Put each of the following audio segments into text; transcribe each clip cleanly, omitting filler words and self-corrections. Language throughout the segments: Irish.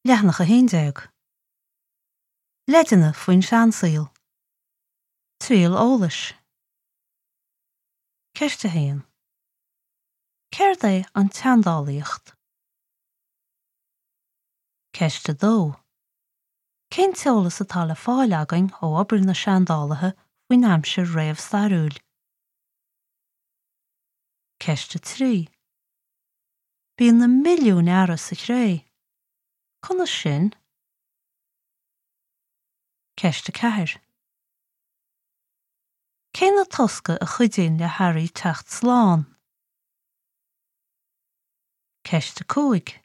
Leathanach 11. Leideanna faoin seansaol. Triail eolais. Ceist 1. Céard é an tseandálaíocht? Ceist 2. Cén t-eolas atá le fáil againn ó obair na seandálaithe faoin aimsir réamhstairiúil? Ceist 3. Bíonn na milliúin earra sa chré. Conas sin? Ceist 4. Cé na tosca a chuidíonn le hearraí teacht slán? Ceist 5.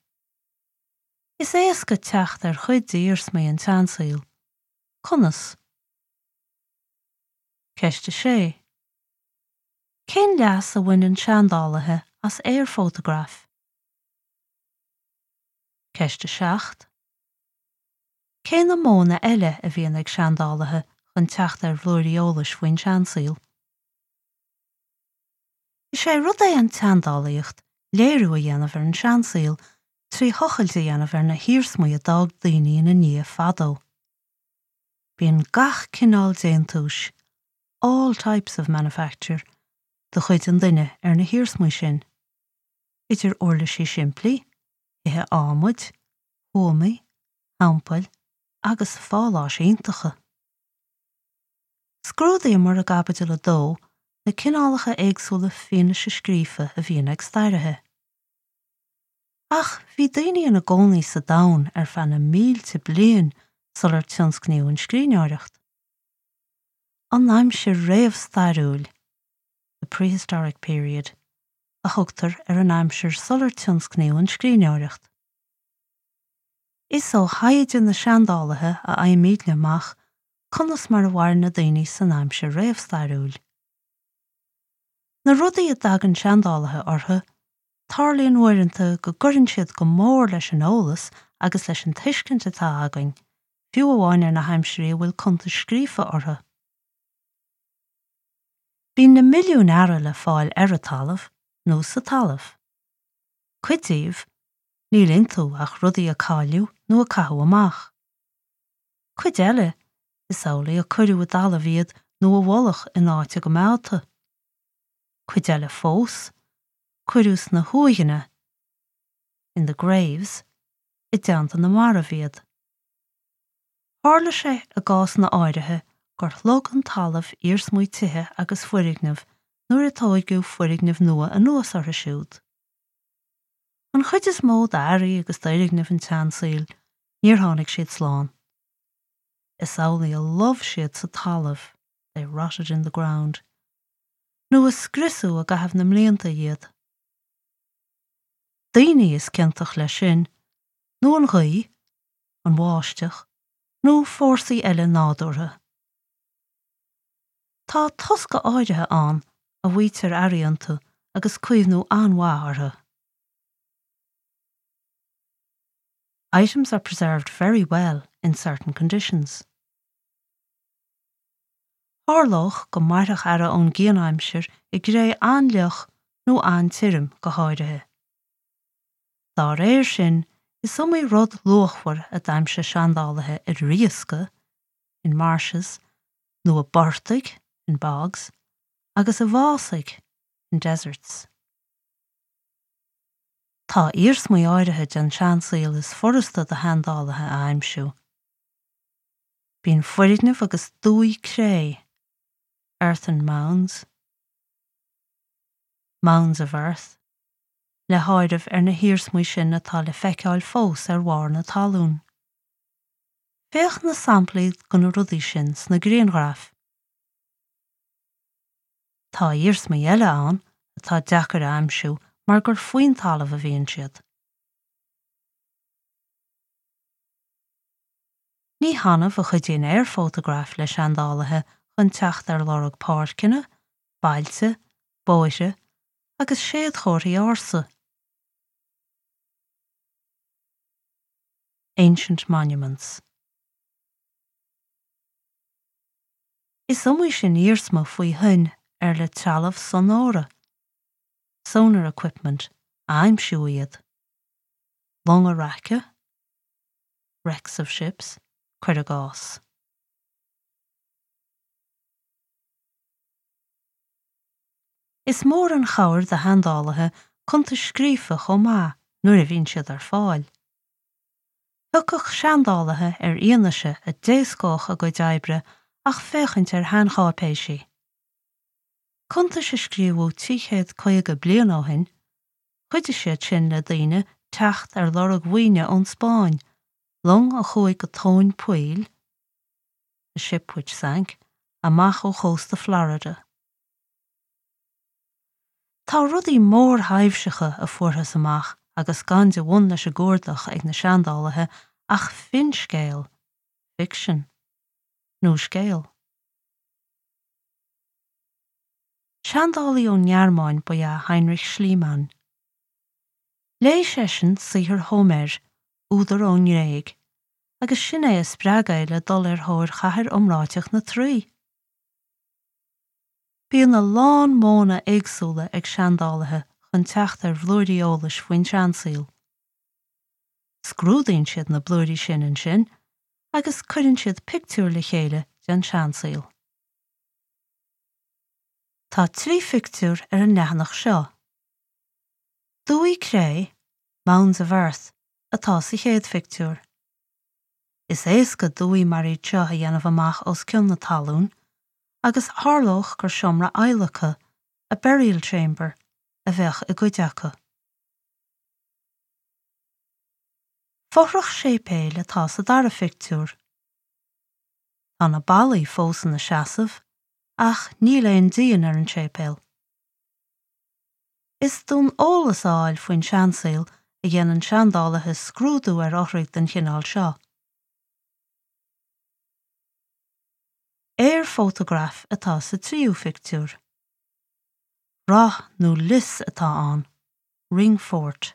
Is éasca teacht ar chuid d'iarsmaí an tseansaoil. Conas? Ceist 6. Cén leas a bhaineann seandálaithe as aerfótagraif? Ceist 7. Cé na modhanna eile a bhíonn ag seandálaithe chun teacht ar bhlúirí eolais faoin seansaol? Is é rud é an tseandálaíocht léiriú a dhéanamh ar an seansaol trí thochailt a dhéanamh ar na hiarsmaí a d'fhág daoine ina ndiaidh fadó. Bíonn gach cineál déantúis, all types of manufacture, de chuid an duine ar na hiarsmaí sin, idir uirlisí simplí, thithe adhmaid, thuamaí, theampaill agus pháláis iontacha. Scrúdaíomar i gCaibidil 2 na cineálacha éagsúla fianaise scríofa a bhíonn ag stairithe. Ach bhí daoine ina gcónaí sa domhan ar feadh na mílte bliain sular tionscnaíodh an scríbhneoireacht. An aimsir réamhstairiúil, the prehistoric period, a thugtar ar an aimsir sular tionscnaíodh an scríbhneoireacht. Is ó thaighde na seandálaithe a fhaighimidne amach conas mar a mhair na daoine san aimsir réamhstairiúil. Na rudaí a dtagann seandálaithe orthu, tarlaíonn uaireanta go gcuireann siad go mór leis an eolas agus leis an tuiscint atá againn, fiú amháin ar na haimsirí a bhfuil cuntais scríofa orthu. Bíonn na milliúin earra le fáil ar an talamh nó sa talamh. Cuid díobh, níl iontu ach rudaí a cailleadh nó a caitheadh amach. Cuid eile, is amhlaidh a cuireadh i dtalamh iad nó i bhfolach in áit a gcoimeádta. Cuid eile fós, cuireadh sna huaigheanna, in the graves, i dteannta na marbh iad. Tharla sé i gcásanna áirithe gur shlog an talamh iarsmaí tithe agus foirgneamh nuair a tóigeadh foirgnimh nua anuas orthu siúd. An chuid is mó d'earraí agus d'fhoirgnimh an tseansaoil, níor tháinig siad slán. Is amhlaidh a lobh siad sa talamh, they rotted in the ground, nó a scriosadh i gcaitheamh na mblianta iad. Daoine is ciontach leis sin, nó an ghaoth, an bháisteach, nó fórsaí eile nádúrtha. Tá tosca áirithe ann a bhfaightear earraí iontu agus caomhnú an-mhaith orthu. Items are preserved very well in certain conditions. Tharlódh go mairfeadh earra ón gcianaimsir i gcré an-fhliuch nó an-tirim go háirithe. Dá réir sin, is iomaí rud luachmhar a d'aimsigh seandálaithe i riasca, in marshes, nó i bportaigh, in bogs, agus i bhfásaigh, in deserts. Tá iarsmaí áirithe den seansaol is furasta do sheandálaithe a aimsiú. Bíonn foirgnimh agus dumhaí cré, earthen mounds, mounds of earth, le háireamh ar na hiarsmaí sin atá le feiceáil fós ar bharr na talún. Féach na samplaí de na rudaí sin sna grianghraif. Tá iarsmaí eile ann atá deacair a aimsiú mar gur faoin talamh a bhíonn siad. Ní hannamh a chuidíonn aerfótagraif le seandálaithe chun teacht ar lorg páirceanna, bailte, bóithre agus séadchomharthaí ársa. Ancient monuments. Is iomaí sin iarsma faoi thoinn ar le trealamh sonóra, sonar equipment, a aimsiú iad. Longa raice. Wrecks of ships, cuir i gcás. Is mór an chabhair do sheandálaithe cuntais scríofa chomh maith nuair a bhíonn siad ar fáil. Thiocfadh seandálaithe ar fhianaise a d'éascódh a gcuid oibre ach féachaint ar sheancháipéisí. Cuntais a scríobhadh 350 bliain ó shin, chuidigh siad sin le daoine teacht ar lorg mhaoine ón Spáinn, long a chuaigh go tóin poill, a ship which sank, amach ó chósta Florida. Tá rudaí mórthaibhseacha a fuarthas amach agus gan de bhun leis an gcuardach ag na seandálaithe ach finscéal, fiction, nó scéal. Seandálaí ón nGearmáin ba ea Heinrich Schliemann. Léigh seisean saothar Hóiméir, údar ón nGréig, agus sin é a spreag é le dul ar thóir chathair iomráiteach na Traí. Bíonn a lán modhanna éagsúla ag seandálaithe chun teacht ar bhlúirí eolais faoin seansaol. Scrúdaíonn siad na blúirí sin ansin agus cuireann siad pictiúr le chéile den seansaol. Tá 3 phictiúr ar an leathanach seo. Dumhaí cré, mounds of earth, atá sa chéad phictiúr. Is éasca dumhaí mar iad seo a dhéanamh amach os cionn na talún agus tharlódh gur seomra adhlactha, a burial chamber, a bheadh i gcuid acu. Fothrach séipéil atá sa dara phictiúr. Tá na ballaí fós ina seasamh ach níl aon díon ar an séipéal. Is d'fhonn eolas a fháil faoin seansaol a dhéanann seandálaithe scrúdú ar fhothraigh den chineál seo. Aerfótagraf atá sa tríú phictiúr. Rath nó lios atá ann, ring fort.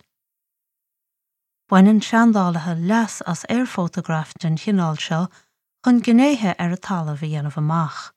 Baineann seandálaithe leas as aerfótagraif den chineál seo chun gnéithe ar an talamh a dhéanamh amach.